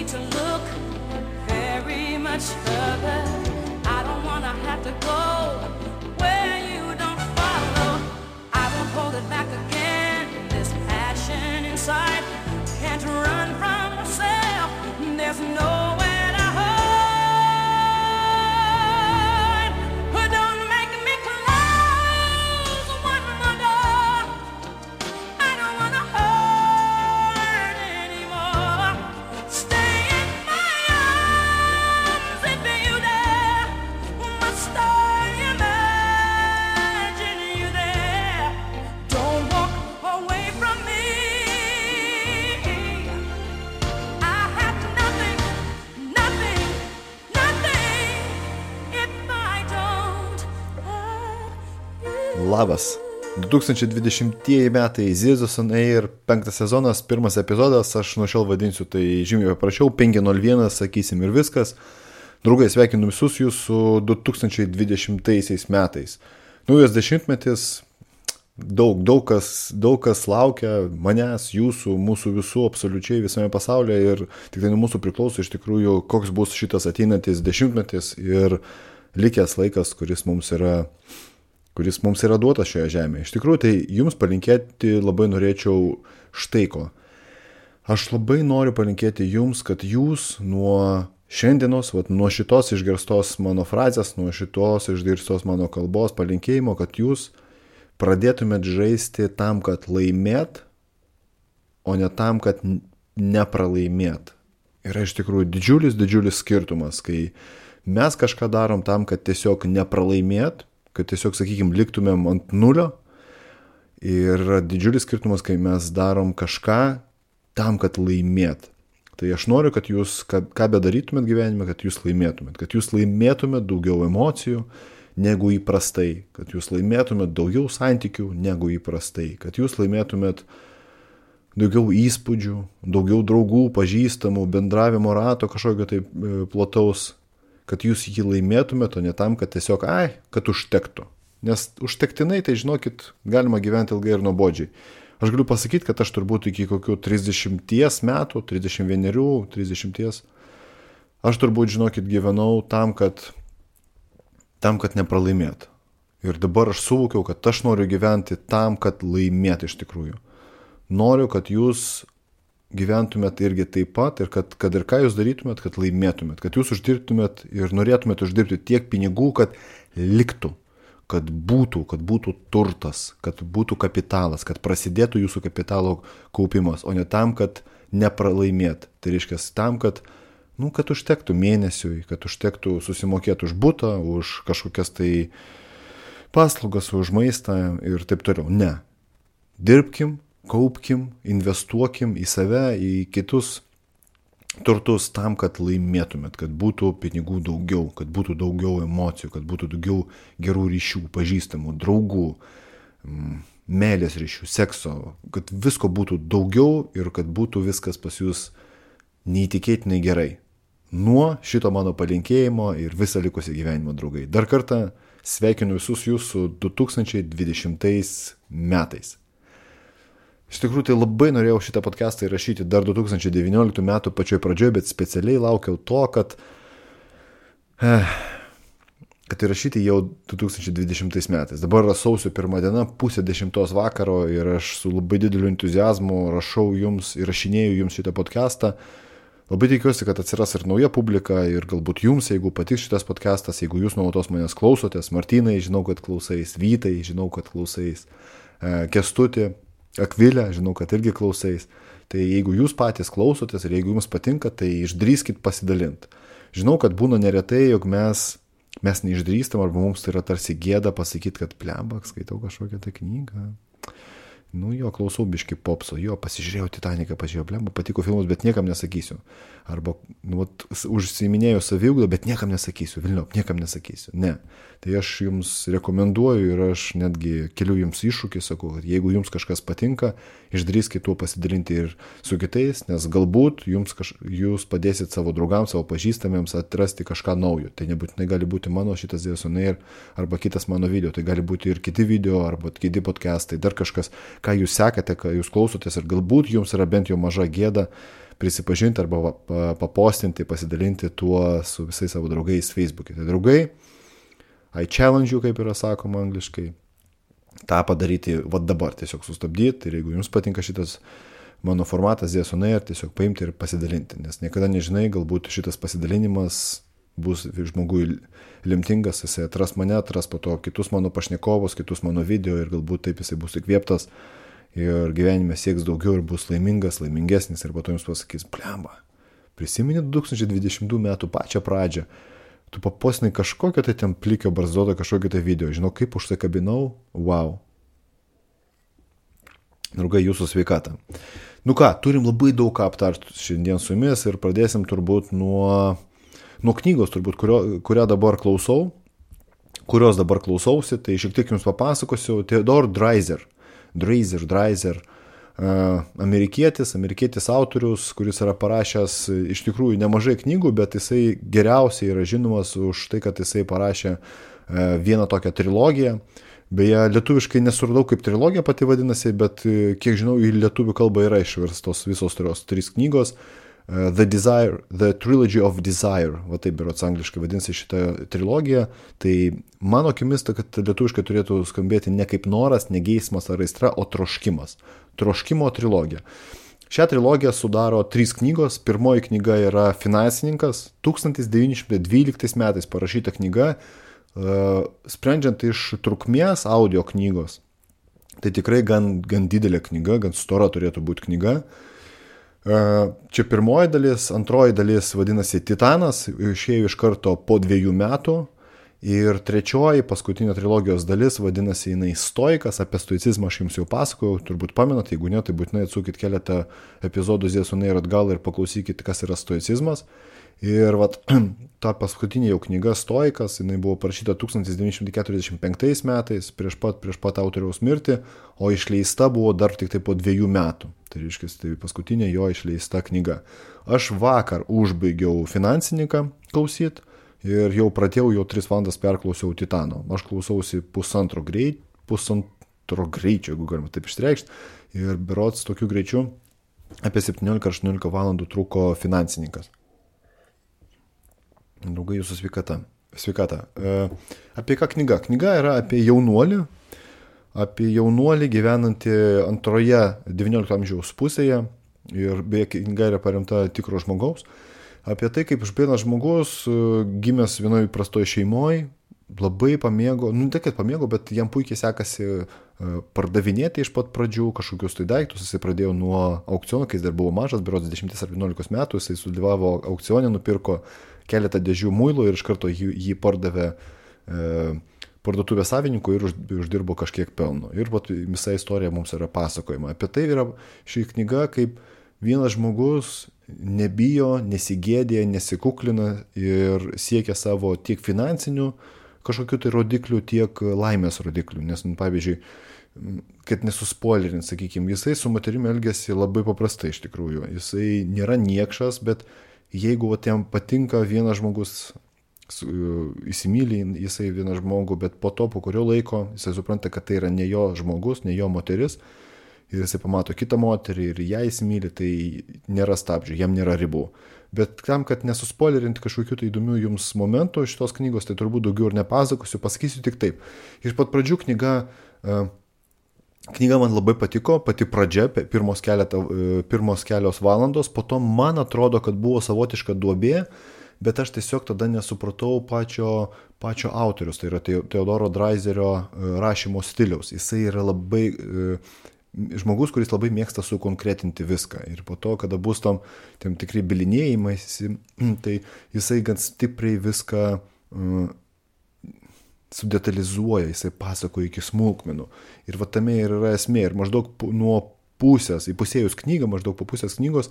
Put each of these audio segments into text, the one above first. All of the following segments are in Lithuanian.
need to look very much further. I don't want to have to go where you don't follow. I won't hold it back again. This passion inside can't run from myself. There's nowhere to hide. Don't make me close one more door. I don't want to hurt anymore. Stay in my arms if you dare. Must I imagine you there? Don't walk away from me. I have nothing if I don't have you. Labas. 2020 metai Zirzus on Air, 5 sezonas, 1 epizodas, aš nuo šiol vadinsiu tai žymiai paprašiau, 501, sakysim ir viskas. Draugai, sveikinu visus jūs su 2020 metais. Naujas dešimtmetis, daug kas laukia manęs, jūsų, mūsų visų, absoliučiai visame pasaulyje ir tik tai nuo mūsų priklauso iš tikrųjų, koks bus šitas ateinantis dešimtmetis ir likęs laikas, kuris mums yra duotas šioje žemėje. Iš tikrųjų, tai jums palinkėti labai norėčiau štai ko. Aš labai noriu palinkėti jums, kad jūs nuo šiandienos, nuo šitos išgirstos mano frazės, nuo šitos išgirstos mano kalbos palinkėjimo, kad jūs pradėtumėt žaisti tam, kad laimėt, o ne tam, kad nepralaimėt. Yra iš tikrųjų didžiulis skirtumas, kai mes kažką darom tam, kad tiesiog nepralaimėt, kad tiesiog, sakykime, liktumėm ant nulio. Ir didžiulis skirtumas, kai mes darom kažką tam, kad laimėt. Tai aš noriu, kad jūs, ką bedarytumėt gyvenime, kad jūs laimėtumėt daugiau emocijų negu įprastai, kad jūs laimėtumėt daugiau santykių negu įprastai, kad jūs laimėtumėt daugiau įspūdžių, daugiau draugų, pažįstamų, bendravimo rato kažkokio tai plataus, kad jūs jį laimėtumėt, o ne tam, kad tiesiog, kad užtektų. Nes užtektinai, tai žinokit, galima gyventi ilgai ir nuobodžiai. Aš galiu pasakyti, kad aš turbūt iki kokių 30 metų, 31, 30, aš turbūt, žinokit, gyvenau tam, kad nepralaimėt. Ir dabar aš suvokiau, kad aš noriu gyventi tam, kad laimėt iš tikrųjų. Noriu, kad jūs gyventumėt irgi taip pat ir kad ir ką jūs darytumėt, kad laimėtumėt, kad jūs uždirbtumėt ir norėtumėt uždirbti tiek pinigų, kad liktų, kad būtų turtas, kad būtų kapitalas, kad prasidėtų jūsų kapitalo kaupimas, o ne tam, kad nepralaimėt. Tai reiškia tam, kad užtektų mėnesiui, kad užtektų susimokėti už butą, už kažkokias tai paslaugas, už maistą ir taip toliau. Ne. Dirbkim, kaupkim, investuokim į save, į kitus turtus tam, kad laimėtumėt, kad būtų pinigų daugiau, kad būtų daugiau emocijų, kad būtų daugiau gerų ryšių, pažįstamų, draugų, meilės ryšių, sekso, kad visko būtų daugiau ir kad būtų viskas pas jūs neįtikėtinai gerai. Nuo šito mano palinkėjimo ir visą likusį gyvenimą, draugai. Dar kartą sveikinu visus jūs su 2020 metais. Iš tikrųjų, tai labai norėjau šitą podcastą įrašyti dar 2019 metų pačioj pradžioje, bet specialiai laukiau to, kad įrašyti jau 2020 metais. Dabar yra sausio 1 diena, 9:30 vakaro ir aš su labai dideliu entuziazmu įrašinėju jums šitą podcastą. Labai tikiuosi, kad atsiras ir nauja publika ir galbūt jums, jeigu patiks šitas podcastas, jeigu jūs nuolatos manęs klausotės, Martynai, žinau, kad klausais, Vytai, žinau, kad klausais, Kęstuti, Akvilė, žinau, kad irgi klausais. Tai jeigu jūs patys klausotės ir jeigu jums patinka, tai išdrįskit pasidalinti. Žinau, kad būna neretai, jog mes neišdrįstam arba mums tai yra tarsi gėda pasakyti, kad plembak, skaitau kažkokią tą knygą. Klausau biški popso, pasižiūrėjau Titaniką, patiko filmus, bet niekam nesakysiu. Arba, užsiiminėjau saviugdą, bet niekam nesakysiu, niekam nesakysiu. Ne. Tai aš jums rekomenduoju ir aš netgi keliu jums iššūkį, sakau, kad jeigu jums kažkas patinka, išdrįskit tuo pasidalinti ir su kitais, nes galbūt jūs padėsit savo draugams, savo pažįstamiems atrasti kažką naujo. Tai nebūtinai gali būti mano šitas Zirzus on Air arba kitas mano video, tai gali būti ir kiti video arba kiti podcastai, dar kažkas, ką jūs sekate, ką jūs klausotės ir galbūt jums yra bent jau maža gėda prisipažinti arba papostinti, pasidalinti tuo su visais savo draugais Facebook'e. Tai draugai, I challenge you, kaip yra sakoma angliškai, tą padaryti dabar, tiesiog sustabdyti ir jeigu jums patinka šitas mano formatas ZS on Air, tiesiog paimti ir pasidalinti, nes niekada nežinai, galbūt šitas pasidalinimas bus žmogui lemtingas, jisai atras mane, atras po to kitus mano pašnekovus, kitus mano video ir galbūt taip jisai bus įkvėptas ir gyvenime sieks daugiau ir bus laimingas, laimingesnis ir po to jums pasakys, blemba, prisimeni 2020 metų pačią pradžią, tu papostinai kažkokio tai ten plikio barzdoto kažkokio tai video, žinau kaip užsikabinau, wow. Draugai, jūsų sveikatą. Nu ką, turim labai daug ką aptarti šiandien su jumis ir pradėsim turbūt nuo knygos, turbūt, kurios dabar klausausi, tai šiek tiek jums papasakosiu. Theodore Dreiser, amerikietis autorius, kuris yra parašęs iš tikrųjų nemažai knygų, bet jisai geriausiai yra žinomas už tai, kad jisai parašė vieną tokią trilogiją. Beje, lietuviškai nesuradau, kaip trilogija pati vadinasi, bet kiek žinau, į lietuvių kalbą yra išverstos visos trys knygos. The Trilogy of Desire, va taip berods angliškai vadinasi šitą trilogiją, tai mano akimis, kad lietuviškai turėtų skambėti ne kaip noras, ne geismas ar aistra, o troškimas. Troškimo trilogija. Šią trilogiją sudaro 3 knygos. Pirmoji knyga yra Finansininkas, 1912 metais parašyta knyga, sprendžiant iš trukmės audio knygos. Tai tikrai gan didelė knyga, gan stora turėtų būti knyga. Čia pirmoji dalis, antroji dalis vadinasi Titanas, išėjo iš karto po 2 metų ir trečioji, paskutinė trilogijos dalis vadinasi jinai Stoikas, apie stoicizmą aš jums jau pasakojau, turbūt pamenat, jeigu ne, tai būtinai atsukit keletą epizodų ZS on Air atgal ir paklausykit, kas yra stoicizmas. Ir ta paskutinė jau knyga Stoikas, jinai buvo parašyta 1945 metais, prieš pat autoriaus mirtį, o išleista buvo dar tik tai po 2 metų. Tai reiškia, tai paskutinė jo išleista knyga. Aš vakar užbaigiau Finansininką klausyti ir jau pradėjau, jau 3 valandas perklausiau Titano. Aš klausausi pusantro greičio, jeigu galima taip išreikšti, ir berods tokiu greičiu apie 17-18 valandų truko Finansininkas. Draugai, jūsų sveikata. Apie ką knyga? Knyga yra apie jaunuolį gyvenantį antroje 19 amžiaus pusėje ir beje knyga yra paremta tikro žmogaus. Apie tai, kaip vienas žmogus gimęs vienoje įprastoje šeimoje, labai pamėgo, tai kad pamėgo, bet jam puikiai sekasi pardavinėti iš pat pradžių kažkokius tai daiktus. Jisai pradėjo nuo aukciono, kai jis dar buvo mažas, berods 10 ar 11 metų, jisai sudalyvavo aukcione, nupirko keletą dėžių muilo ir iš karto jį pardavė parduotuvės savininkui ir uždirbo kažkiek pelno. Ir visa istorija mums yra pasakojama. Apie tai yra ši knyga, kaip vienas žmogus nebijo, nesigėdė, nesikuklina ir siekia savo tiek finansinių kažkokių tai rodiklių, tiek laimės rodiklių. Nes, pavyzdžiui, kad nesuspoilerint, sakykime, jisai su moterimi elgiasi labai paprastai iš tikrųjų. Jisai nėra niekšas, bet jeigu jam patinka vienas žmogus, įsimylį jisai vieną žmogų, bet po kurio laiko jisai supranta, kad tai yra ne jo žmogus, ne jo moteris, ir jisai pamato kitą moterį ir ją įsimylį, tai nėra stabdžių, jam nėra ribų. Bet tam, kad nesuspoilerinti kažkokių tai įdomių jums momentų šitos knygos, tai turbūt daugiau ir nepasakosiu, pasakysiu tik taip. Iš pat pradžių knyga man labai patiko, pati pradžia, pirmos kelios valandos, po to man atrodo, kad buvo savotiška duobė, bet aš tiesiog tada nesupratau pačio autorius, tai yra Theodoro Dreiserio rašymo stiliaus. Jisai yra labai žmogus, kuris labai mėgsta sukonkretinti viską. Ir po to, kada bus tam tikri bilinėjimai, tai jisai gan stipriai viską sudetalizuoja, jisai pasakoja iki smulkmenų. Ir tame ir yra esmė. Ir maždaug nuo įpusėjus knygą, maždaug po pusės knygos,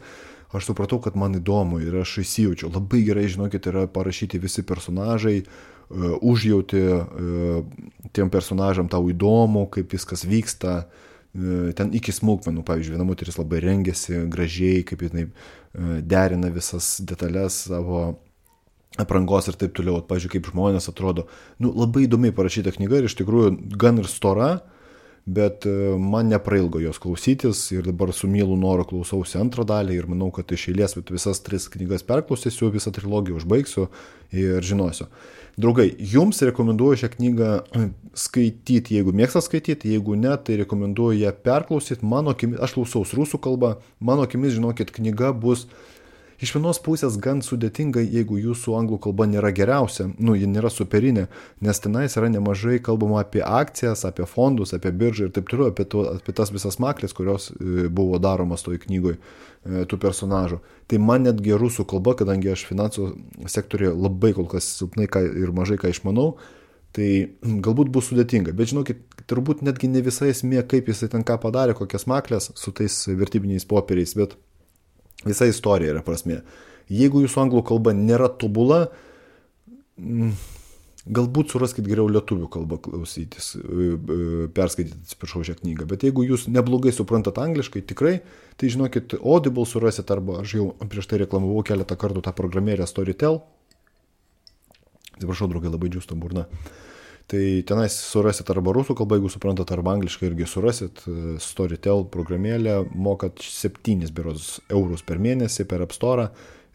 aš supratau, kad man įdomu ir aš įsijaučiau. Labai gerai, žinokit, yra parašyti visi personažai, užjauti tiem personažam tau įdomu, kaip viskas vyksta, ten iki smulkmenų. Pavyzdžiui, viena moteris labai rengiasi gražiai, kaip jinai derina visas detalės savo aprangos ir taip toliau. Pavyzdžiui, kaip žmonės atrodo. Labai įdomiai parašyta knyga ir iš tikrųjų gan ir stora, bet man neprailgo jos klausytis ir dabar su mielu noru klausausi antrą dalį ir manau, kad iš eilės visas 3 knygas perklausysiu, visą trilogiją užbaigsiu ir žinosiu. Draugai, jums rekomenduoju šią knygą skaityti, jeigu mėgstat skaityti, jeigu ne, tai rekomenduoju ją perklausyti. Mano akimis, aš klausaus rusų kalbą, mano akimis, žinokit, knyga bus iš vienos pusės gan sudėtinga, jeigu jūsų anglų kalba nėra geriausia, ji nėra superinė, nes tenais yra nemažai kalbama apie akcijas, apie fondus, apie biržą ir taip toliau, apie tas visas maklės, kurios buvo daromas toj knygoj tų personažų. Tai man netgi rusų kalba, kadangi aš finansų sektorėje labai kol kas silpnai ir mažai ką išmanau, tai galbūt bus sudėtinga. Bet žinokit, turbūt netgi ne visai esmė, kaip jisai ten ką padarė, kokias maklės su tais vertybiniais popieriais, bet visa istorija yra prasmė. Jeigu jūsų anglų kalba nėra tobula, galbūt suraskit geriau lietuvių kalbą klausytis, perskaityti, atsiprašau, šią knygą. Bet jeigu jūs neblogai suprantat angliškai, tikrai, tai žinokit, Audible surasit, arba aš jau prieš tai reklamavau keletą kartų tą programėlę Storytel. Atsiprašau, draugai, labai džiūsta burna. Tai tenais surasit arba rusų kalbą, jeigu suprantat, arba angliškai irgi surasit. Storytel programėlę, mokat 7 eurus per mėnesį per App Store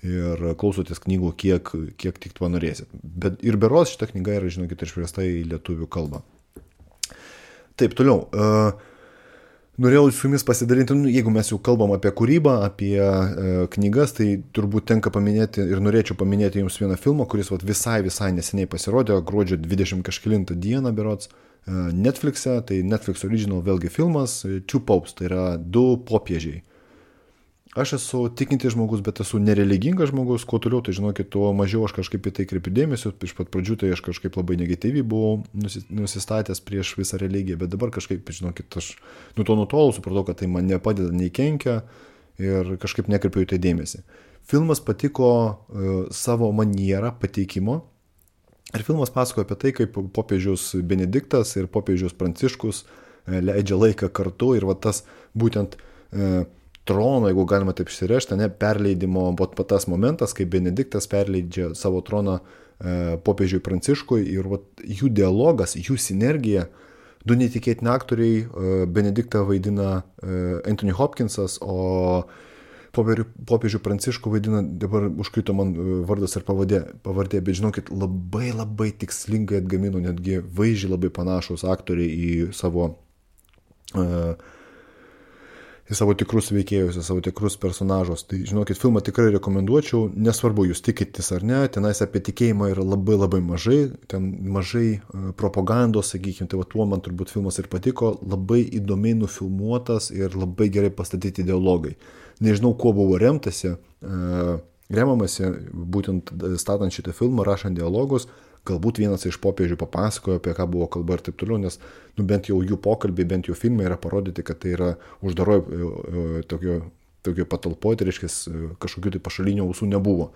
ir klausotės knygų, kiek tik to norėsit. Bet ir berods šita knyga yra, žinokit, išversta į lietuvių kalbą. Taip, toliau. Norėjau su jumis pasidalinti, jeigu mes jau kalbam apie kūrybą, apie knygas, tai turbūt tenka paminėti ir norėčiau paminėti jums vieną filmą, kuris visai neseniai pasirodė, gruodžio 20 kažkelintą dieną berods Netflix'e, tai Netflix original vėlgi filmas Two Popes, tai yra 2 popiežiai. Aš esu tikintis žmogus, bet esu nereligingas žmogus, kuo toliau, tai žinokit, tuo mažiau aš kažkaip į tai kreipiu dėmesio, iš pat pradžių tai aš kažkaip labai negatyviai buvau nusistatęs prieš visą religiją, bet dabar kažkaip, žinokit, aš nuo to nutolau, supratau, kad tai man nepadeda, nei kenkia ir kažkaip nekreipiu į tai dėmesį. Filmas patiko savo manierą pateikimo ir filmas pasakoja apie tai, kaip popiežius Benediktas ir popiežius Pranciškus leidžia laiką kartu ir tas būtent trono, jeigu galima taip išsirežti, perleidimo, tas momentas, kai Benediktas perleidžia savo troną popiežiui Pranciškui ir jų dialogas, jų sinergija, 2 netikėtini aktoriai, Benediktą vaidina Anthony Hopkinsas, o popiežių Pranciškų vaidina, dabar užkrito man vardas ir pavardė, bet žinokit, labai tikslingai atgamino, netgi vaizdžiai labai panašus aktoriai į savo tikrus veikėjus, į savo tikrus personažus. Tai, žinokit, filmą tikrai rekomenduočiau, nesvarbu, jūs tikitės ar ne, tenais apie tikėjimą yra labai mažai, ten mažai propagandos, sakykime, tai tuo man turbūt filmas ir patiko, labai įdomiai nufilmuotas ir labai gerai pastatyti dialogai. Nežinau, kuo buvo remamasi, būtent statant šitą filmą, rašant dialogus, galbūt vienas iš popiežių papasakojo, apie ką buvo kalba ir taip toliau, nes bent jau jų pokalbiai, bent jau filmai yra parodyti, kad tai yra uždaroje tokio patalpoje, tai reiškia, kažkokių tai pašalinių ausų nebuvo.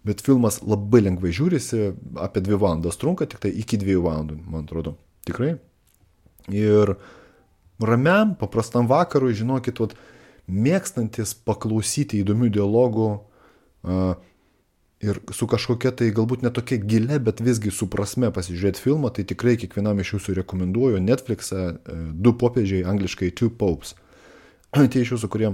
Bet filmas labai lengvai žiūrisi, apie 2 valandas trunka, tik tai iki 2 valandų, man atrodo. Tikrai. Ir ramiam, paprastam vakarui, žinokit, mėgstantis paklausyti įdomių dialogų, ir su kažkokia tai galbūt netokia gilia, bet visgi su prasme pasižiūrėti filmą, tai tikrai kiekvienam iš jūsų rekomenduoju Netflix'e 2 popiežiai, angliškai Two Popes. Tie iš jūsų, kurie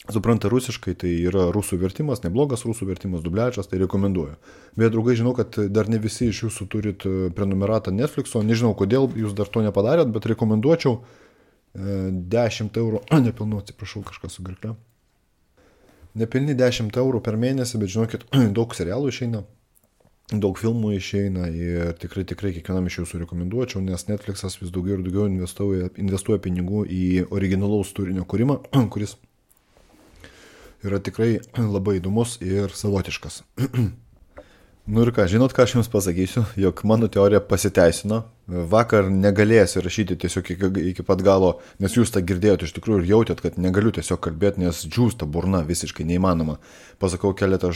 supranta rusiškai, tai yra rusų vertimas, neblogas rusų vertimas, dubliažas, tai rekomenduoju. Bet, draugai, žinau, kad dar ne visi iš jūsų turit prenumeratą Netflix'o, nežinau, kodėl jūs dar to nepadarėt, bet rekomenduočiau 10 eurų, nepilnu, atsiprašau, kažkas su gerkle. Nepilni 10 eurų per mėnesį, bet žinokit, daug serialų išeina, daug filmų išeina ir tikrai kiekvienam iš jūsų rekomenduočiau, nes Netflix'as vis daugiau ir daugiau investuoja pinigų į originalaus turinio kūrimą, kuris yra tikrai labai įdomus ir savotiškas. Nu ir ką, žinot, ką aš jums pasakysiu, jog mano teorija pasiteisino. Vakar negalėsiu rašyti tiesiog iki pat galo, nes jūs tą girdėjote iš tikrųjų ir jautėt, kad negaliu tiesiog kalbėti, nes džiūsta burna, visiškai neįmanoma. Pasakau keletą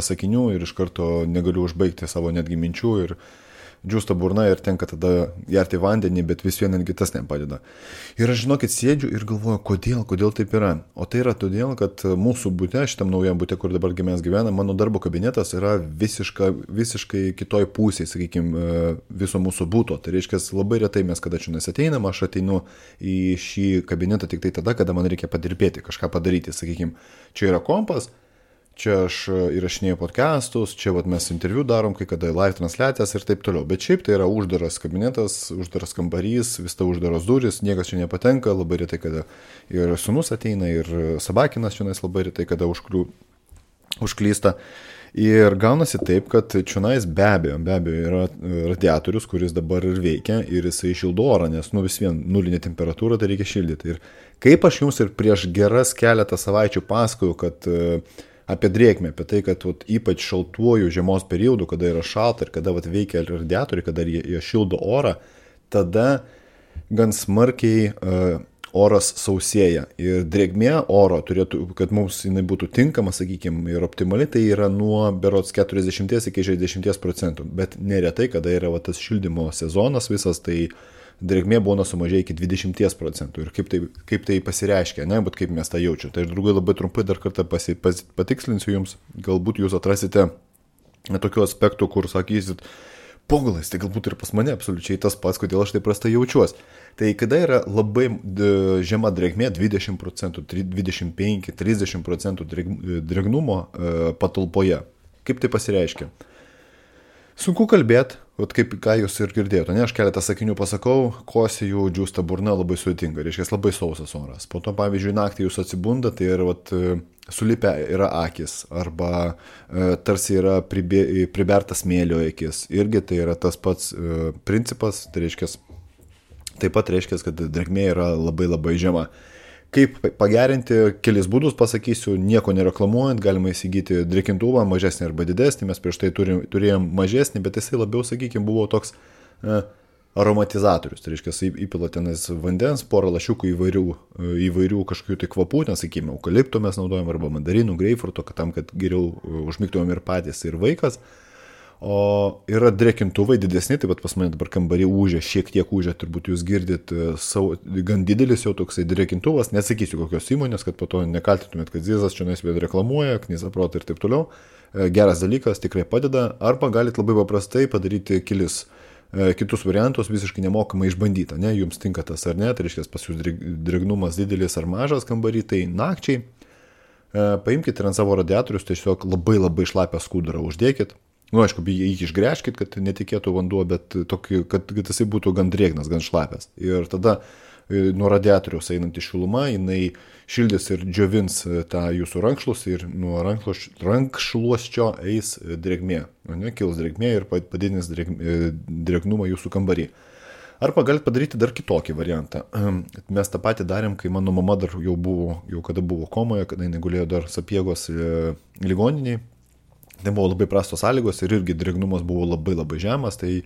sakinių ir iš karto negaliu užbaigti savo netgi minčių ir džiūsta burna ir tenka tada gerti vandenį, bet vis vien netgi tas nepadeda. Ir aš žinokit, sėdžiu ir galvoju, kodėl taip yra. O tai yra todėl, kad mūsų bute, šitam naujam bute, kur dabar mes gyvename, mano darbo kabinetas yra visiškai kitoj pusėje, sakykime, viso mūsų būto. Tai reiškia, labai retai mes kada čia ateinam, aš ateinu į šį kabinetą tik tai tada, kada man reikia padirbėti, kažką padaryti, sakykime, čia yra kompas, čia aš įrašinėjau podcastus, čia vat, mes interviu darom, kai kada live transliacijas ir taip toliau. Bet šiaip tai yra uždaras kabinetas, uždaras kambarys, vis ta uždaros durys, niekas čia nepatenka, labai retai kada ir sūnus ateina, ir Sabakinas čionais labai retai kada užklysta. Ir gaunasi taip, kad čionais be abejo yra radiatorius, kuris dabar ir veikia ir jisai šildo orą, nes vis vien nulinė temperatūra, tai reikia šildyti. Ir kaip aš jums ir prieš geras keletą savaičių pasakojau, kad apie drėgmę, apie tai, kad ypač šaltuoju žiemos periodu, kada yra šalta ir kada veikia radiatoriai, kada jie šildo orą, tada gan smarkiai oras sausėja. Ir drėgmė oro turėtų, kad mums jinai būtų tinkama, sakykime, ir optimali, tai yra nuo berods 40 iki 60%. Bet neretai, kada yra tas šildymo sezonas visas, tai drėgmė būna sumažėja iki 20%. Ir kaip tai pasireiškia, ne, bet kaip mes tą jaučiu. Tai draugai labai trumpai dar kartą patikslinsiu jums, galbūt jūs atrasite tokių aspektų, kur sakysit, pogalais, tai galbūt ir pas mane absoliučiai tas pats, kodėl aš taip prastai jaučiuos. Tai kada yra labai žema drėgmė, 20%, 25, 30% drėgnumo patalpoje, kaip tai pasireiškia? Sunku kalbėti, ką jūs ir girdėjote, ne, aš keletą sakinių pasakau, kosėjų, džiūsta burna, labai sudėtinga, reiškia labai sausas oras. Po to, pavyzdžiui, naktį jūs atsibunda, tai yra sulipę yra akis, arba tarsi yra pribertas smėlio akis. Irgi tai yra tas pats principas, tai reiškia, taip pat reiškia, kad drėgmė yra labai labai žema. Kaip pagerinti, kelis būdus pasakysiu, nieko nereklamuojant, galima įsigyti drėkintuvą, mažesnį arba didesnį, mes prieš tai turėjom mažesnį, bet jisai labiau, sakykime, buvo toks aromatizatorius, tai reiškia, įpila tenais vandens, porą lašiukų įvairių kažkokių tai kvapų, nesakykime, eukalipto mes naudojam, arba mandarinų, greipfruto, tam, kad geriau užmigtumėm ir patys, ir vaikas. O yra drėkintuvai didesni, taip pat pas mane dabar kambarį ūžia, šiek tiek ūžia, turbūt jūs girdit, gan didelis jau toksai drėkintuvas, nesakysiu kokios įmonės, kad po to nekaltytumėt, kad Zizas čia nesvėd reklamuoja, Knyzaprot ir taip toliau. Geras dalykas, tikrai padeda, arba galite labai paprastai padaryti kitus variantus, visiškai nemokamai išbandyti, ne, jums tinka tas ar ne, tai reiškia pas jūs drėgnumas didelis ar mažas kambarį, tai nakčiai paimkite ant savo radiatorius, tiesiog labai labai šlapią skudurą uždėkit. Aišku, jį išgręžkit, kad netikėtų vanduo, bet tokį, kad jisai būtų gan drėgnas, gan šlapias. Ir tada nuo radiatoriaus einanti šiluma, jinai šildys ir džiovins tą jūsų rankšluostį ir nuo rankšluosčio eis drėgmė. Kils drėgmė ir padidins drėgnumą jūsų kambarį. Arba galite padaryti dar kitokį variantą. Mes tą patį darėm, kai mano mama dar jau kada buvo komoje, kada jinai gulėjo dar Sapiegos ligoniniai. Tai buvo labai prastos sąlygos ir irgi drėgnumas buvo labai labai žemas, tai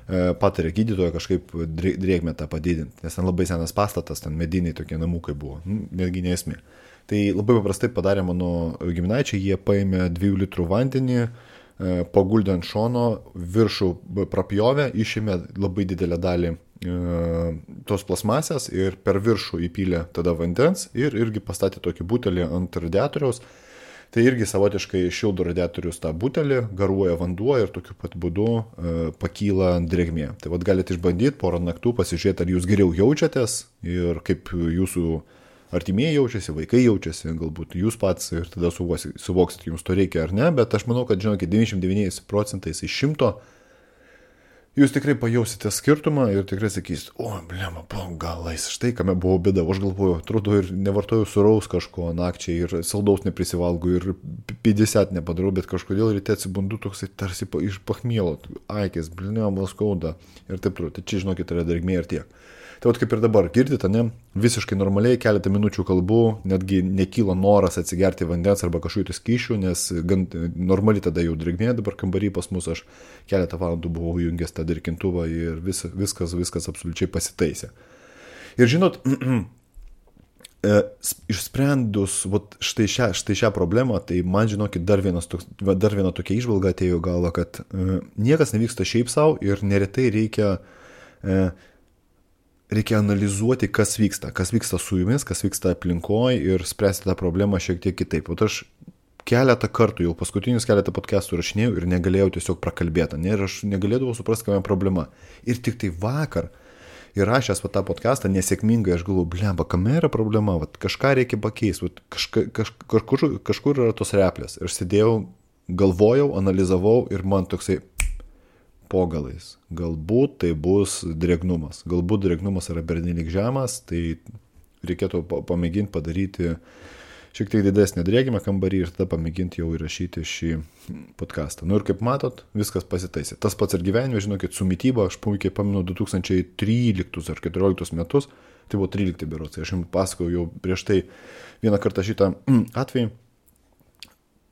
patarė gydytoja kažkaip drėgmę tą padidinti, nes ten labai senas pastatas, ten mediniai tokie namukai buvo, netgi nesmė. Tai labai paprastai padarė mano giminaičiai, jie paėmė 2 litrų vandenį, paguldė ant šono, viršų prapjovė, išėmė labai didelę dalį tos plasmasės ir per viršų įpylė tada vandens ir irgi pastatė tokį butelį ant radiatoriaus. Tai irgi savotiškai šildo radiatorius tą butelį, garuoja vanduo ir tokiu pat būdu pakyla drėgmė. Tai galite išbandyti porą naktų, pasižiūrėti, ar jūs geriau jaučiatės ir kaip jūsų artimieji jaučiasi, vaikai jaučiasi, galbūt jūs pats ir tada suvoksit, jums to reikia ar ne, bet aš manau, kad, žinokit, 99% iš 100 jūs tikrai pajausite skirtumą ir tikrai sakysit, blema, galais, štai kame buvo bėda, aš galvoju, atrodo ir nevartoju suraus kažko nakčiai ir saldaus neprisivalgu ir 50 nepadarau, bet kažkodėl ryte atsibundu toksai tarsi iš pachmielo, aikės, blema, skauda ir taip toliau. Tai čia, žinokit, yra drėgmė ir tiek. Tai kaip ir dabar, girdite, ne, visiškai normaliai, keletą minučių kalbu, netgi nekyla noras atsigerti vandens arba kažkokių skysčių, nes gan normali tada jau drėgmė, dabar kambarį pas mus aš keletą valandų buvau jungęs tą drėkintuvą ir viskas absoliučiai pasitaisė. Ir žinot, Išsprendus štai šią problemą, tai man žinokit, dar viena tokia įžvalga atėjo galva, kad niekas nevyksta šiaip savo ir neretai reikia analizuoti, kas vyksta su jumis, kas vyksta aplinkoje ir spręsti tą problemą šiek tiek kitaip. O aš keletą kartų, jau paskutinius keletą podcastų rašinėjau ir negalėjau tiesiog prakalbėti, ir aš negalėdavau suprasti, kame problema. Ir tik tai vakar įrašęs tą podcastą nesėkmingai, aš galvoju, blemba, kame yra problema, kažką reikia pakeisti, kažkur yra tos replės. Ir aš sėdėjau, galvojau, analizavau ir man toksai po galais. Galbūt tai bus drėgnumas. Galbūt drėgnumas yra pernelyg žemas, tai reikėtų pamėginti padaryti šiek tiek didesnį drėgimą kambarį ir tada pamėginti jau įrašyti šį podcastą. Ir kaip matot, viskas pasitaisė. Tas pats ir gyvenime, žinokit, su mityba, aš puikiai pamenu 2013 ar 2014 metus, tai buvo 13 berods, aš jums pasakojau jau prieš tai vieną kartą šitą atvejį.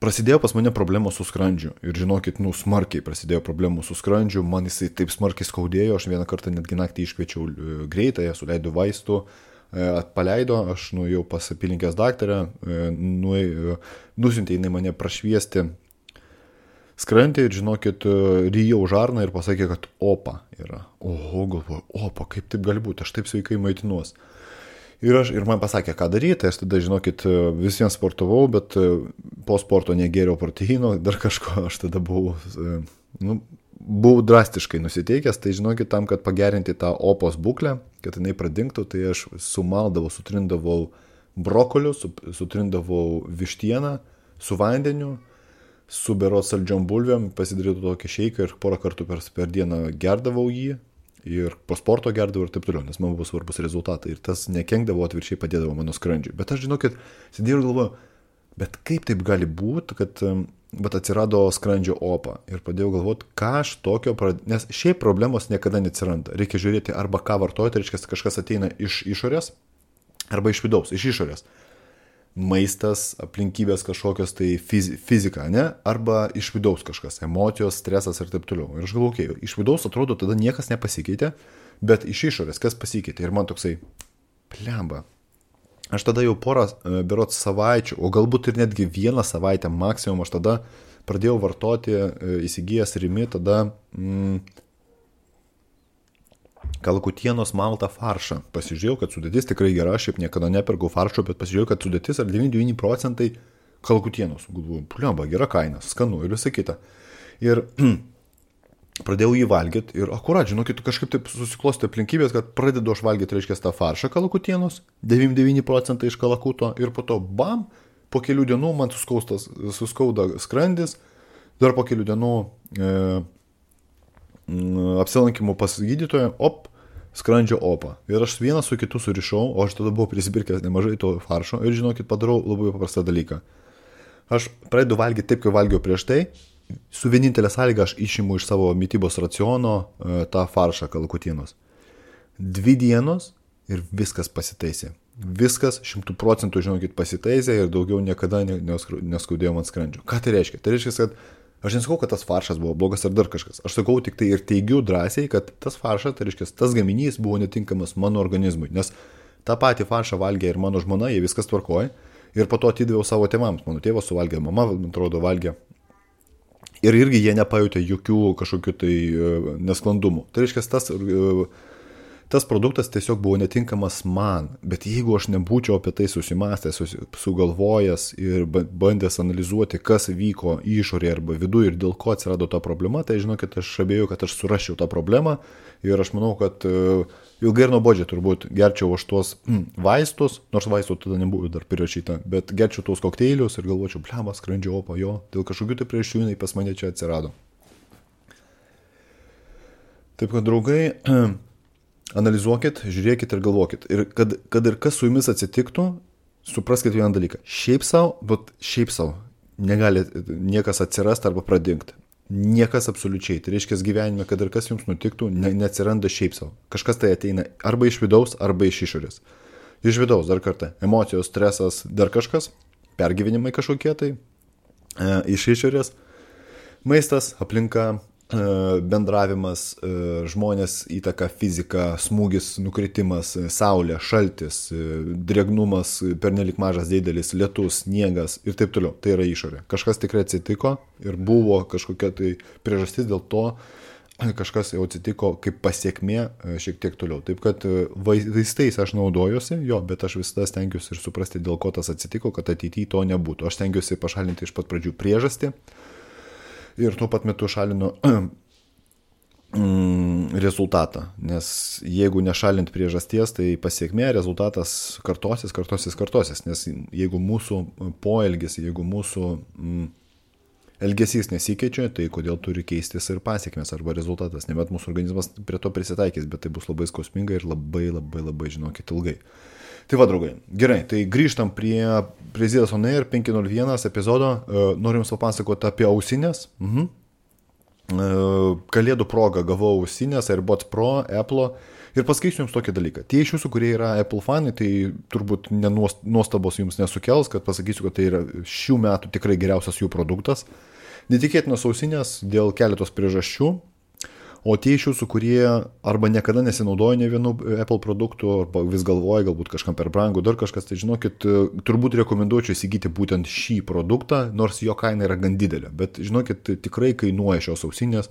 Prasidėjo pas mane problemos su skrandžiu ir žinokit, smarkiai prasidėjo problemų su skrandžiu, man jisai taip smarkiai skaudėjo, aš vieną kartą netgi naktį iškviečiau greitąją, suleidau vaistų, paleido, aš nuėjau pas apylinkės daktarę, nusiuntė jinai mane prašviesti skrandį ir žinokit, ryjau žarną ir pasakė, kad opa yra. Oho, galvoju, opa, kaip taip gali būti, aš taip sveikai maitinuos. Ir man pasakė, ką daryti, aš tada, žinokit, visiems sportavau, bet po sporto negėriau proteino, dar kažko, aš tada buvau drastiškai nusiteikęs, tai žinokit, tam, kad pagerinti tą opos būklę, kad jinai pradingtų, tai aš sumaldavau, sutrindavau brokoliu, sutrindavau vištieną su vandeniu, su berods saldžiom bulvėm, pasidarytų tokį šeiką ir porą kartų per dieną gerdavau jį ir po sporto gerdavau ir taip toliau, nes man buvo svarbus rezultatai ir tas nekenkdavo, atvirkščiai padėdavo mano skrandžiui. Bet aš, žinokit, sėdėjau ir galvoju, bet kaip taip gali būti, kad atsirado skrandžio opa ir pradėjau galvoti, ką aš tokio, nes šiaip problemos niekada neatsiranda. Reikia žiūrėti arba ką vartojate, reiškia, kažkas ateina iš išorės arba iš vidaus, iš išorės. Maistas, aplinkybės kažkokios, tai fizika, ne? Arba iš vidaus kažkas, emocijos, stresas ir taip toliau. Ir aš galvoju, iš vidaus atrodo, tada niekas nepasikeitė, bet iš išorės kas pasikeitė. Ir man toksai, plemba. Aš tada jau porą berods savaičių, o galbūt ir netgi vieną savaitę maksimum, aš tada pradėjau vartoti, įsigijęs Rimi, tada kalakutienos maltą faršą. Pasižiūrėjau, kad sudėtis tikrai gera, šiaip niekada nepirkau faršo, bet pasižiūrėjau, kad sudėtis yra 99% kalakutienos. Galvoju, plemba, gera kaina, skanu ir visą kitą. Ir pradėjau jį valgyti ir akurat, žinokit, kažkaip taip susiklosti aplinkybės, kad pradedu aš valgyti, reiškia, tą faršą kalakutienos, 99% iš kalakuto ir po to, bam, po kelių dienų man suskauda skrandis, dar po kelių dienų apsilankimų pas gydytoją, skrandžio opa. Ir aš vieną su kitu surišau, o aš tada buvau prisipirkęs nemažai to faršo ir, žinokit, padarau labai paprastą dalyką. Aš pradedu valgyti taip, kaip valgiau prieš tai, su vienintelė sąlyga aš išimu iš savo mitybos raciono tą faršą kalakutienos. 2 dienos ir viskas pasitaisė. Viskas 100%, žinokit, pasitaisė ir daugiau niekada neskaudėjo man skrandžio. Ką tai reiškia? Tai reiškia, kad aš nesakau, kad tas faršas buvo blogas ar dar kažkas. Aš sakau tik tai ir teigiu drąsiai, kad tas faršas, tai reiškia, tas gaminys buvo netinkamas mano organizmui. Nes tą patį faršą valgė ir mano žmona, jie viskas tvarkoja. Ir po to atidaviau savo tėvams. Mano tėvas suvalgė, mama, man atrodo, valgė. Ir irgi jie nepajutė jokių kažkokių tai nesklandumų. Tai reiškia, tas produktas tiesiog buvo netinkamas man. Bet jeigu aš nebūčiau apie tai susimastęs, sugalvojęs ir bandęs analizuoti, kas vyko išorėje arba viduje ir dėl ko atsirado ta problema, tai žinokit, aš abejoju, kad aš surasčiau tą problemą. Ir aš manau, kad ilgai ir nuobodžiai turbūt gerčiau aš tuos vaistus, nors vaistų tada nebuvo dar prirašyta, bet gerčiau tuos kokteilius ir galvočiau, blemba, skrandžio opa, jo, dėl kažkokių tai priežasčių jinai pas mane čia atsirado. Taip kad, draugai, analizuokit, žiūrėkit ir galvokit. Ir kad ir kas su jumis atsitiktų, supraskite vieną dalyką. Šiaip savo negali niekas atsirasti arba pradingti. Niekas absoliučiai. Tai reiškia gyvenime, kad ir kas jums nutiktų, neatsiranda šiaip savo. Kažkas tai ateina arba iš vidaus, arba iš išorės. Iš vidaus, dar kartą, emocijos, stresas, dar kažkas, pergyvenimai kažkokie tai, iš išorės, maistas, aplinka, bendravimas, žmonės, įtaka, fizika, smūgis, nukritimas, saulė, šaltis, drėgnumas, pernelik mažas didelis, lietus, sniegas ir taip toliau. Tai yra išorė. Kažkas tikrai atsitiko ir buvo kažkokia tai priežastis, dėl to kažkas jau atsitiko kaip pasiekmė šiek tiek toliau. Taip kad vaistais aš naudojuosi, bet aš visada stengiuosi ir suprasti, dėl ko tas atsitiko, kad ateityje to nebūtų. Aš stengiuosi pašalinti iš pat pradžių priežastį. Ir tuo pat metu šalinu rezultatą, nes jeigu nešalint priežasties, tai pasiekmė rezultatas kartosis, nes jeigu mūsų poelgis, jeigu mūsų elgesys nesikeičia, tai kodėl turi keistis ir pasiekmės arba rezultatas, nebent mūsų organizmas prie to prisitaikys, bet tai bus labai skausminga ir labai, žinokit, ilgai. Tai va, draugai, gerai, tai grįžtam prie Zėdos On Air 501 epizodo, noriu jums papasakoti apie ausinės. Kalėdų proga gavau ausinės AirPods Pro, Apple ir pasakysiu jums tokį dalyką. Tie iš jūsų, kurie yra Apple fanai, tai turbūt nuostabos jums nesukels, kad pasakysiu, kad tai yra šių metų tikrai geriausias jų produktas. Netikėtinos ausinės dėl keletos priežasčių. O tie iš jūsų, kurie arba niekada nesinaudoja ne vienu Apple produktu, arba vis galvoja, galbūt kažkam per brangų, dar kažkas, tai žinokit, turbūt rekomenduočiau įsigyti būtent šį produktą, nors jo kaina yra gan didelė. Bet žinokit, tikrai kainuoja šios ausinės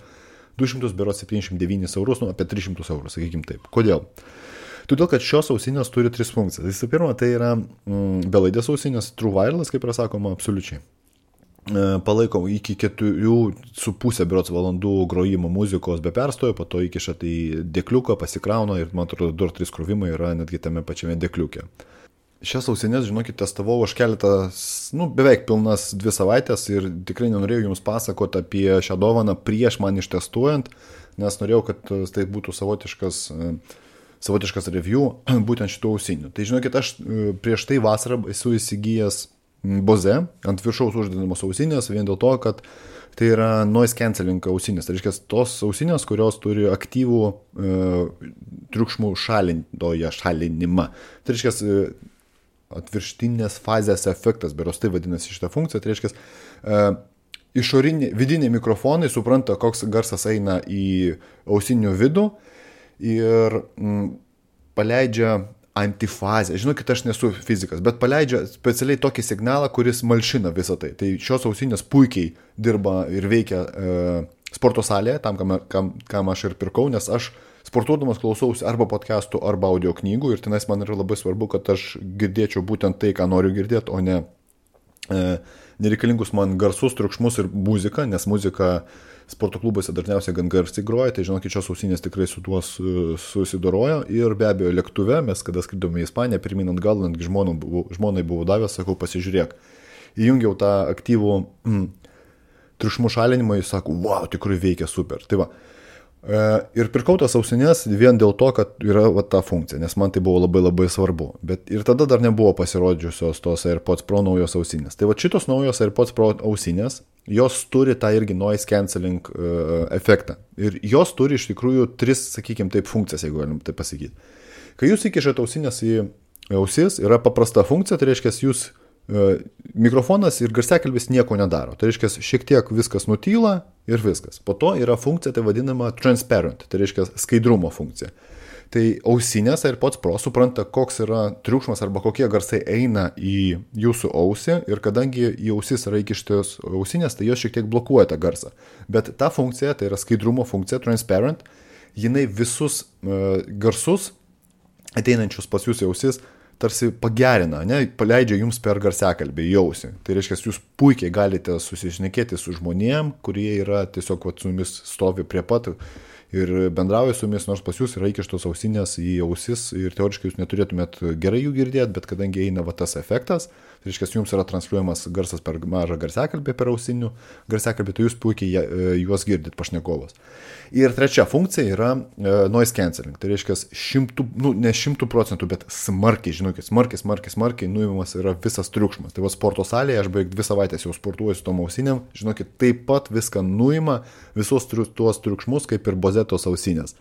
279 eurus, apie 300 eurų, sakykim taip. Kodėl? Todėl, kad šios ausinės turi 3 funkcijas. Visų pirma, tai yra belaidės ausinės, True Wireless, kaip yra sakoma, absoliučiai. Palaiko iki 4,5 berods valandų grojimo muzikos be perstojo, po to įkiša tai dėkliuką, pasikrauna ir man atrodo 2-3 krovimai yra netgi tame pačiame dėkliuke. Šias ausinės, žinokit, testavau aš beveik pilnas 2 savaitės ir tikrai nenorėjau jums pasakoti apie šią dovaną prieš man ištestuojant, nes norėjau, kad tai būtų savotiškas review būtent šitų ausinių. Tai žinokit, aš prieš tai vasarą esu įsigijęs Bose ant viršaus uždedamos ausinės vien dėl to, kad tai yra noise cancelling ausinės. Tai reiškia tos ausinės, kurios turi aktyvų triukšmų šalinimą. Tai reiškia atvirštinės fazės efektas, beros tai vadinasi šitą funkciją. Tai reiškia vidiniai mikrofonai supranta, koks garsas eina į ausinių vidų ir paleidžia antifazę. Žinokit, aš nesu fizikas, bet paleidžia specialiai tokį signalą, kuris malšina visą tai. Tai šios ausinės puikiai dirba ir veikia sporto salėje, tam, kam aš ir pirkau, nes aš sportuodamas klausausi arba podcastų, arba audio knygų ir tenais man yra labai svarbu, kad aš girdėčiau būtent tai, ką noriu girdėti, o ne nereikalingus man garsus, triukšmus ir muziką, nes muzika sporto klubuose dažniausiai gan garsiai groja, tai žinokit, šios ausinės tikrai su tuo susidorojo ir be abejo lėktuve, mes kada skridome į Ispaniją, pirmin ant gal, netgi žmonai buvo davęs, sakau, pasižiūrėk. Įjungiau tą aktyvų triukšmų šalinimą, jis sako, wow, tikrai veikia super. Tai va. Ir pirkau tas ausinės vien dėl to, kad yra ta funkcija, nes man tai buvo labai svarbu. Bet ir tada dar nebuvo pasirodžiusios tos AirPods Pro naujos ausinės. Tai va šitos naujos AirPods Pro ausinės, jos turi tą irgi noise cancelling efektą. Ir jos turi iš tikrųjų 3, sakykime taip, funkcijas, jeigu galim taip pasakyti. Kai jūs įkišate ausinės į ausis, yra paprasta funkcija, tai reiškia, jūs mikrofonas ir garsiakalbis nieko nedaro. Tai reiškia, šiek tiek viskas nutyla ir viskas. Po to yra funkcija, tai vadinama transparent, tai reiškia skaidrumo funkcija. Tai ausinės AirPods Pro supranta, koks yra triukšmas arba kokie garsai eina į jūsų ausį ir kadangi į ausis yra įkištos ausinės, tai jos šiek tiek blokuoja tą garsą. Bet ta funkcija, tai yra skaidrumo funkcija, transparent, jinai visus garsus ateinančius pas jūs į ausis tarsi pagerina, paleidžia jums per garsiakalbį į ausį. Tai reiškia, jūs puikiai galite susišnekėti su žmonėm, kurie yra tiesiog su jumis stovi prie pat ir bendrauja su jumis, nors pas jūs yra įkištos ausinės į ausis ir teoriškai jūs neturėtumėt gerai jų girdėti, bet kadangi eina tas efektas, tai reiškia, jums yra transliuojamas garsas per mažą garsiakalbį, per ausinių garsiakalbį, tai jūs puikiai juos girdit pašnekovas. Ir trečia funkcija yra noise cancelling, tai reiškia, ne 100%, bet smarkiai, žinokit, smarkiai nuimamas yra visas triukšmas. Tai va sporto salėje, aš beveik 2 savaitės jau sportuoju su tom ausinėm, žinokit, taip pat viską nuima, visos tuos triukšmus, kaip ir Bosetos ausinės.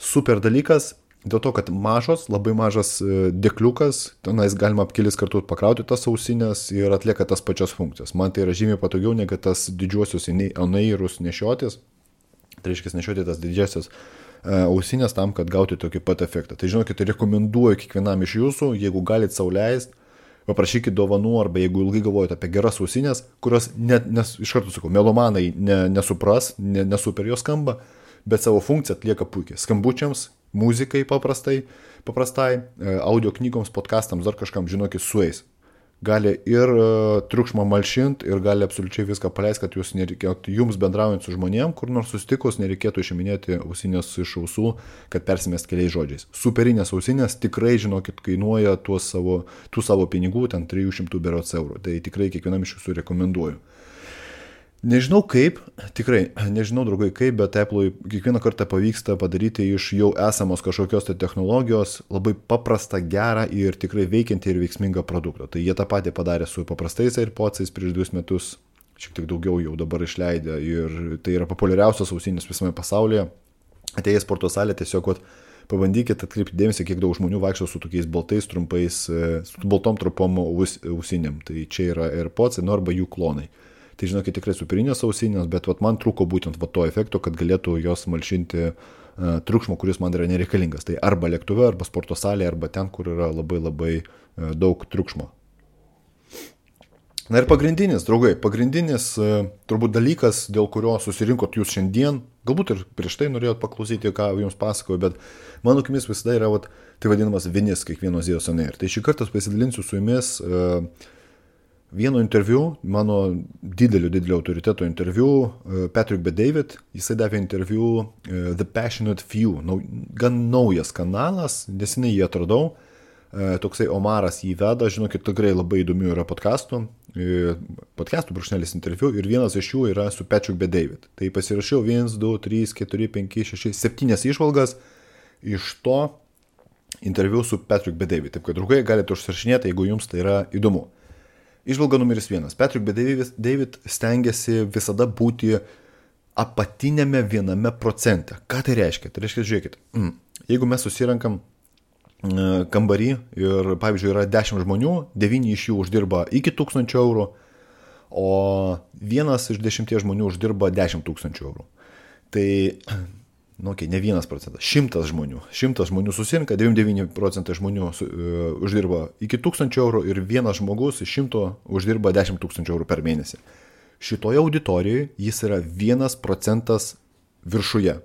Super dalykas, dėl to, kad labai mažas dėkliukas, tenais galima kelis kartus pakrauti tas ausinės ir atlieka tas pačias funkcijas. Man tai yra žymiai patogiau, negu tas didžiuosius on-airus nešiotis. Tai reiškia nešioti tas didžiasias ausinės tam, kad gauti tokį pat efektą. Tai žinokit, rekomenduoju kiekvienam iš jūsų, jeigu galit sau leist, paprašykit dovanų, arba jeigu ilgai galvojate apie geras ausinės, kurios iš karto sakau, melomanai nesupras, nesuper jos skamba, bet savo funkciją atlieka puikiai. Skambučiams, muzikai paprastai, audio knygoms, podcastams, dar kažkam, žinokit, sueis. Gali ir triukšmą malšinti, ir gali absoliučiai viską paleisti, kad jūs nereikėtų, jums bendraujant su žmonėm, kur nors susitikus, nereikėtų išiminėti ausinės iš ausų, kad persimest keliais žodžiais. Superinės ausinės tikrai, žinokit, kainuoja tų savo pinigų, ten 300 berods eurų. Tai tikrai kiekvienam iš jūsų rekomenduoju. Nežinau kaip, tikrai, nežinau draugai kaip, bet Apple'ui kiekvieną kartą pavyksta padaryti iš jau esamos kažkokios tai technologijos labai paprastą, gerą ir tikrai veikiantį ir veiksmingą produktą. Tai jie tą patį padarė su paprastais AirPods'ais prieš 2 metus, šiek tiek daugiau jau dabar išleidę, ir tai yra populiariausios ausinės visame pasaulyje. Atėję į sporto salę tiesiog pabandykit atkreipti dėmesį, kiek daug žmonių vaikšto su tokiais baltais trumpais, su baltom trumpom ausinėm. Tai čia yra AirPods'ai, arba jų klonai. Tai žinokit, tikrai superinės ausinės, bet man trūko būtent to efekto, kad galėtų jos malšinti triukšmo, kuris man yra nereikalingas. Tai arba lėktuve, arba sporto salėje, arba ten, kur yra labai labai daug triukšmo. Na ir pagrindinis, draugai, turbūt dalykas, dėl kurio susirinkot jūs šiandien, galbūt ir prieš tai norėjot paklausyti, ką jums pasakoju, bet mano akimis visada yra tai vadinamas vinis kiekvieno Zydus on Air. Tai šį kartą pasidalinsiu su jumis vieno interviu, mano didelio autoriteto interviu, Patrick Bet-David, jisai davė interviu The Passionate Few, gan naujas kanalas, nesenai jį atradau, toksai Omaras jį veda, žinokit, tikrai labai įdomių yra podcastų brūkšnelis interviu, ir vienas iš jų yra su Patrick Bet-David. Tai pasirašiau 1, 2, 3, 4, 5, 6, 7 išvalgas iš to interviu su Patrick Bet-David. Taip kad, draugai, galite užsirašinėti, jeigu jums tai yra įdomu. Išvalga numeris 1. Patrick Bet-David stengiasi visada būti apatinėme 1%. Ką tai reiškia? Tai reiškia, žiūrėkit, jeigu mes susirenkam kambarį ir, pavyzdžiui, yra 10 žmonių, 9 iš jų uždirba iki 1000 eurų, o 1 iš 10 žmonių uždirba 10 000 eurų. Tai, ne 1%, 100 žmonių. 100 žmonių susirinka, 99% žmonių uždirba iki 1000 eurų ir 1 žmogus iš 100 uždirba 10 000 eurų per mėnesį. Šitoje auditorijoje jis yra 1% viršuje.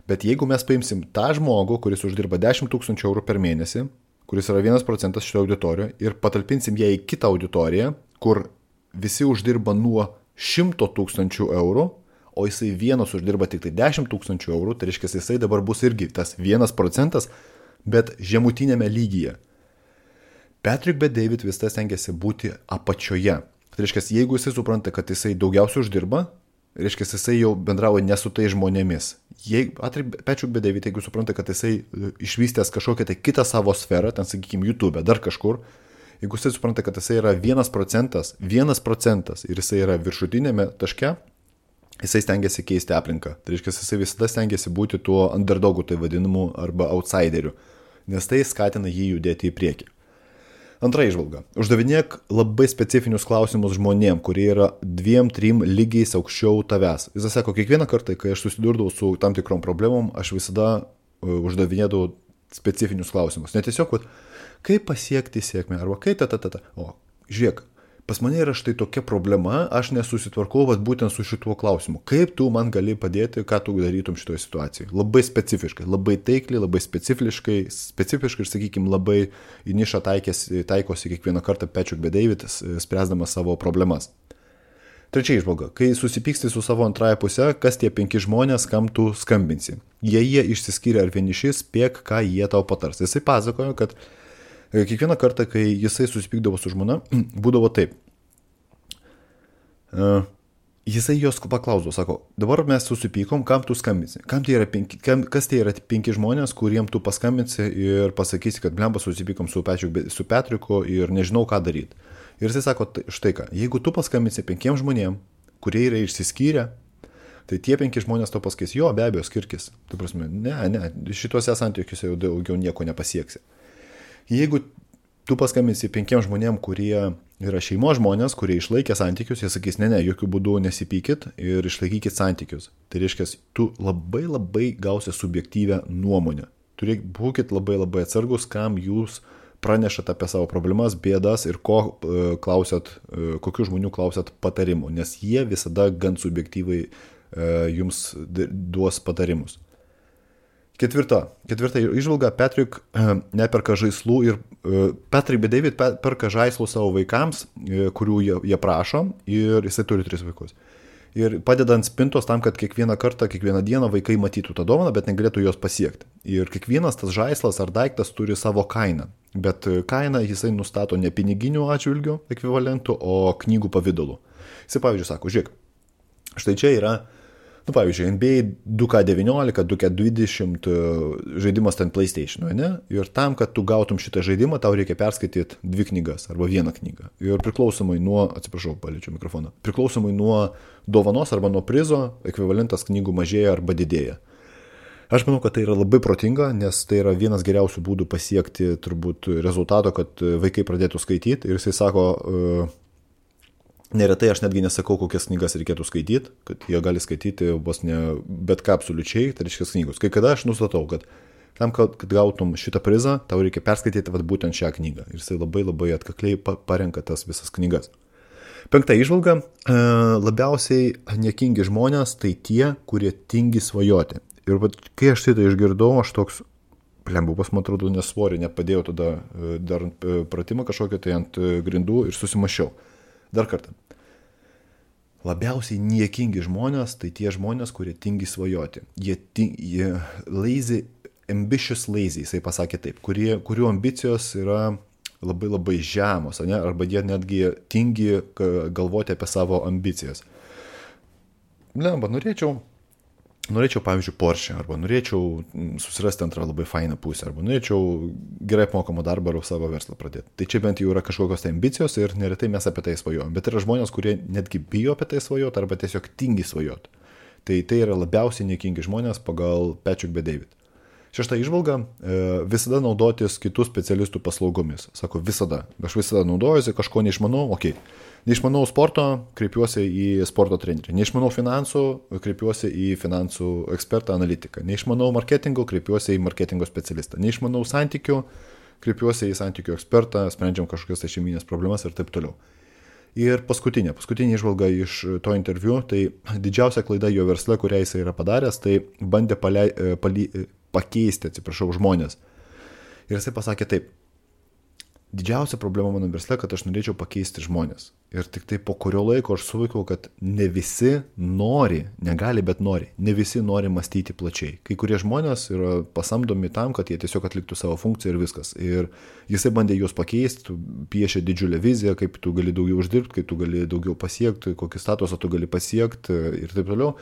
Bet jeigu mes paimsim tą žmogų, kuris uždirba 10 000 eurų per mėnesį, kuris yra 1% šitoje auditorijoje, ir patalpinsim ją į kitą auditoriją, kur visi uždirba nuo 100 000 eurų, o jisai vienas uždirba tik tai 10 000 eurų, tai reiškia, jisai dabar bus irgi tas 1%, bet žemutinėme lygyje. Patrick Bet-David vis tas stengiasi būti apačioje. Tai reiškia, jeigu jisai supranta, kad jisai daugiausiai uždirba, reiškia, jisai jau bendravo ne su tai žmonėmis. Patrick Bet-David, jeigu supranta, kad jisai išvystęs kažkokią tai kitą savo sferą, ten, sakykime, YouTube, dar kažkur, jeigu jisai supranta, kad jisai yra 1% ir jisai yra viršutinėme taške, jisai stengiasi keisti aplinką. Tai reiškia, jisai visada stengiasi būti tuo underdogu, tai vadinamu, arba outsideriu, nes tai skatina jį judėti į priekį. Antra įžvalga. Uždavinėk labai specifinius klausimus žmonėm, kurie yra 2-3 lygiais aukščiau tavęs. Jis sako, kiekvieną kartą, kai aš susidurdavau su tam tikrom problemom, aš visada uždavinėdavau specifinius klausimus. Ne tiesiog, kaip pasiekti sėkmę, arba kaip O, žiūrėk, pas mane yra štai tokia problema, aš nesusitvarkau būtent su šituo klausimu. Kaip tu man gali padėti, ką tu darytum šitoje situacijoje? Labai specifiškai, labai taikliai, labai specifiškai ir, sakykime, labai į nišą taikosi kiekvieną kartą Patrick Bet-David, spręsdamas savo problemas. Trečia įžvalga. Kai susipyksti su savo antrąją pusę, kas tie 5 žmonės, kam tu skambinsi? Jie išsiskyrė ar vieniši, spėk, ką jie tau patars. Jisai pasakojo, kad kiekvieną kartą, kai jisai susipykdavo su žmona, būdavo taip. Jisai jos paklausdavo, sako, dabar mes susipykom, kam tu skambinsi? Kas tai yra 5 žmonės, kuriem tu paskambinsi ir pasakysi, kad blemba susipykom su Patricku ir nežinau, ką daryti. Ir jisai sako, štai ką, jeigu tu paskambinsi 5 žmonėm, kurie yra išsiskyrę, tai tie 5 žmonės to pasakys, jo, be abejo, skirkis. Tai prasme, ne, šituose santykiuose jau daugiau nieko nepasieksi. Jeigu tu paskambinsi 5 žmonėm, kurie yra šeimos žmonės, kurie išlaikė santykius, jie sakys, ne, jokių būdų nesipykit ir išlaikykit santykius. Tai reiškia, tu labai gausi subjektyvę nuomonę. Būkit labai atsargus, kam jūs pranešat apie savo problemas, bėdas ir kokių žmonių klausat patarimų, nes jie visada gan subjektyvai jums duos patarimus. Ketvirta įžvalga, Patrick neperka žaislų ir Patrick bei David perka žaislų savo vaikams, kurių jie prašo, ir jisai turi 3 vaikus. Ir padeda ant spintos tam, kad kiekvieną dieną vaikai matytų tą dovaną, bet negalėtų jos pasiekti. Ir kiekvienas tas žaislas ar daiktas turi savo kainą, bet kainą jisai nustato ne piniginių atžvilgių ekvivalentų, o knygų pavidalu. Jisai, pavyzdžiui, sako, žiūrėk, štai čia yra, pavyzdžiui, NBA 2K19, 2K20 žaidimas ten PlayStation, ne? Ir tam, kad tu gautum šitą žaidimą, tau reikia perskaityti 2 knygas arba 1 knygą. Ir priklausomai nuo, paliečiau mikrofoną, priklausomai nuo dovanos arba nuo prizo, ekvivalentas knygų mažėja arba didėja. Aš manau, kad tai yra labai protinga, nes tai yra vienas geriausių būdų pasiekti turbūt rezultato, kad vaikai pradėtų skaityti. Ir jisai sako, neretai aš netgi nesakau, kokias knygas reikėtų skaityti, kad jie gali skaityti vos ne bet ką absoliučiai, tai reiškia knygos. Kai kada aš nustatau, kad tam, kad gautum šitą prizą, tau reikia perskaityti būtent šią knygą. Ir jisai labai atkakliai parenka tas visas knygas. 5 įžvalga, labiausiai niekingi žmonės tai tie, kurie tingi svajoti. Ir kai aš tai išgirdau, aš toks, plembupas, man atrodo, nesvorį, nepadėjau tada dar pratimą kažkokią tai ant grindų ir susimašiau. Dar kartą. Labiausiai niekingi žmonės, tai tie žmonės, kurie tingi svajoti. Jie ambitious lazy, jisai pasakė taip, kurių ambicijos yra labai žemos, ne? Arba jie netgi tingi galvoti apie savo ambicijas. Norėčiau, pavyzdžiui, Porsche, arba norėčiau susirasti antrą labai fainą pusę, arba norėčiau gerai apmokamą darbą ar savo verslą pradėti. Tai čia bent jau yra kažkokios tai ambicijos ir neretai mes apie tai svajojame. Bet yra žmonės, kurie netgi bijo apie tai svajoti arba tiesiog tingi svajoti. Tai yra labiausiai niekingi žmonės pagal Patrick bei David. 6 įžvalga, visada naudotis kitų specialistų paslaugomis. Sako, visada. Aš visada naudojuosi, kažko neišmanau, okei. Neišmanau sporto, kreipiuosi į sporto trenerį. Neišmanau finansų, kreipiuosi į finansų ekspertą analitiką. Neišmanau marketingo, kreipiuosi į marketingo specialistą. Neišmanau santykių, kreipiuosi į santykių ekspertą, sprendžiam kažkokias šeiminės problemas ir taip toliau. Ir paskutinė įžvalga iš to interviu, tai didžiausia klaida jo versle, kurią jis yra padaręs, tai bandė pakeisti, žmonės. Ir jisai pasakė taip, didžiausia problema mano versle, kad aš norėčiau pakeisti žmonės. Ir tik tai po kurio laiko aš suvokiau, kad ne visi nori, negali, bet nori. Ne visi nori mąstyti plačiai. Kai kurie žmonės yra pasamdomi tam, kad jie tiesiog atliktų savo funkciją ir viskas. Ir jisai bandė juos pakeisti, piešė didžiulę viziją, kaip tu gali daugiau uždirbti, kaip tu gali daugiau pasiekti, kokį statusą tu gali pasiekti ir taip toliau.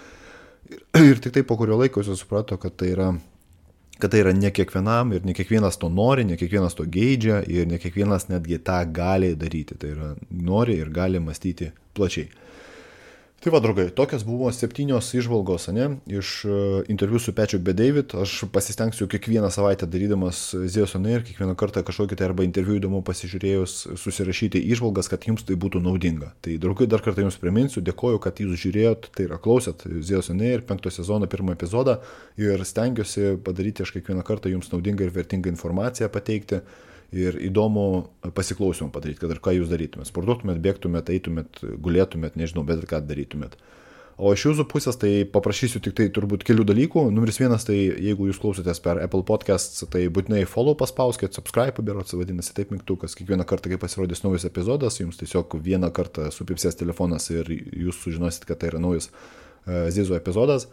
Ir tik tai po kurio laiko jis suprato, kad tai yra ne kiekvienam ir ne kiekvienas to nori, ne kiekvienas to geidžia ir ne kiekvienas netgi tą gali daryti. Tai yra nori ir gali mąstyti plačiai. Tai va, draugai, tokios buvo 7 įžvalgos, ne, iš interviu su Patrick bei David. Aš pasistengsiu kiekvieną savaitę darydamas Zeus on Air, kiekvieną kartą kažkokį tai arba interviu įdomu pasižiūrėjus susirašyti įžvalgas, kad jums tai būtų naudinga. Tai, draugai, dar kartą jums priminsiu, dėkoju, kad jūs žiūrėjot, tai yra klausėt Zeus on Air 5 sezono 1 epizodą ir stengiuosi padaryti aš kiekvieną kartą jums naudingą ir vertingą informaciją pateikti. Ir įdomu pasiklausimą padaryti, kad ir ką jūs darytumėt. Sportuotumėt, bėgtumėt, eitumėt, gulėtumėt, nežinau, bet ką darytumėt. O iš jūsų pusės tai paprašysiu tik tai turbūt kelių dalykų. Numeris 1, tai jeigu jūs klausotės per Apple Podcasts, tai būtinai follow paspauskit, subscribe, berods vadinasi taip mygtukas. Kiekvieną kartą, kai pasirodys naujas epizodas, jums tiesiog vieną kartą supipsės telefonas ir jūs sužinosit, kad tai yra naujas Zizo epizodas.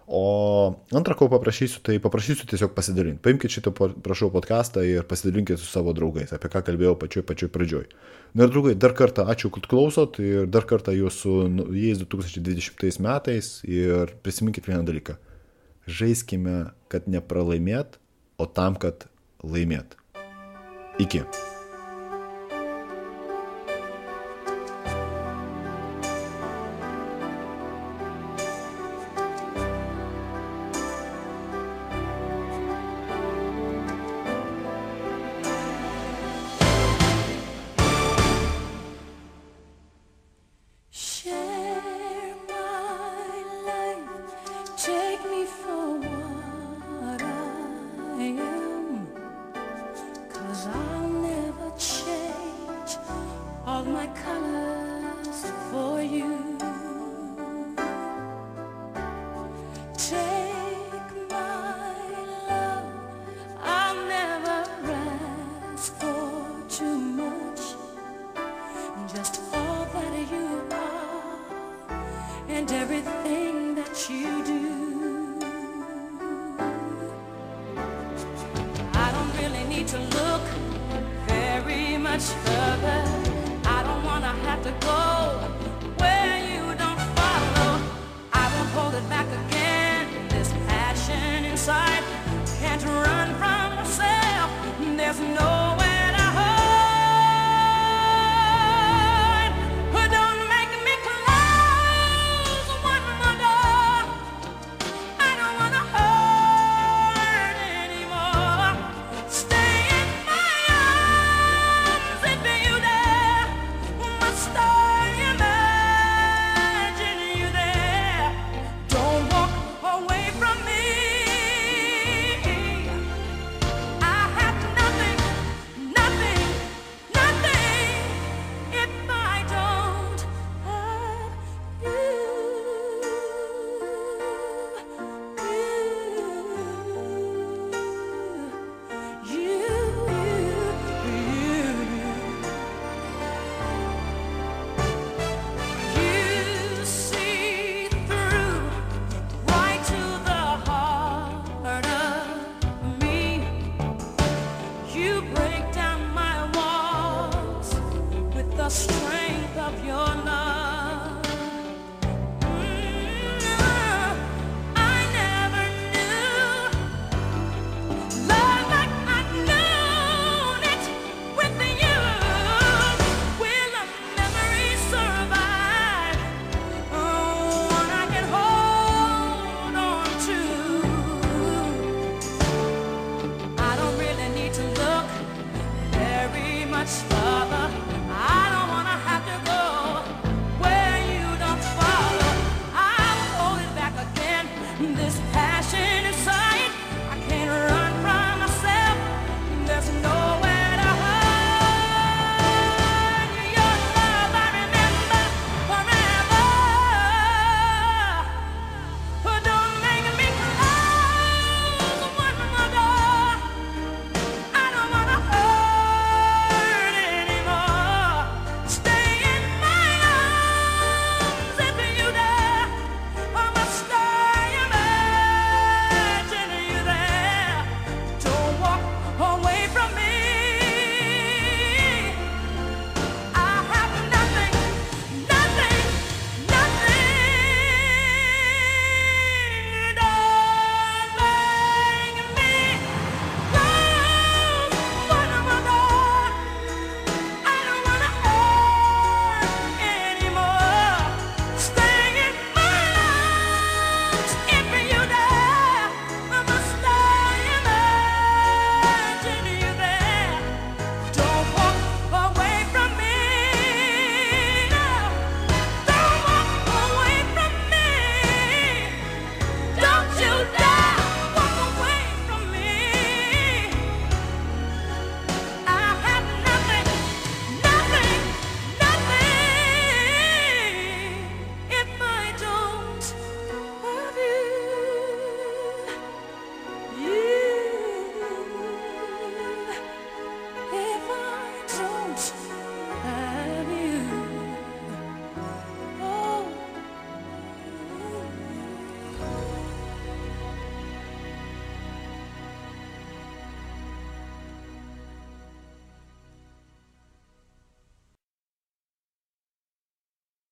O antrą, ko paprašysiu, tai paprašysiu tiesiog pasidalinti. Paimkite šitą, prašau, podcastą ir pasidalinkite su savo draugais, apie ką kalbėjau pačioj pradžioj. Na ir draugai, dar kartą ačiū, kad klausot ir dar kartą jūsų jais 2020 metais ir prisiminkit vieną dalyką. Žaiskime, kad nepralaimėt, o tam, kad laimėt. Iki. and everything that you do. I don't really need to look very much further. I don't wanna have to go where you don't follow. I won't hold it back again. This passion inside can't run from myself. There's no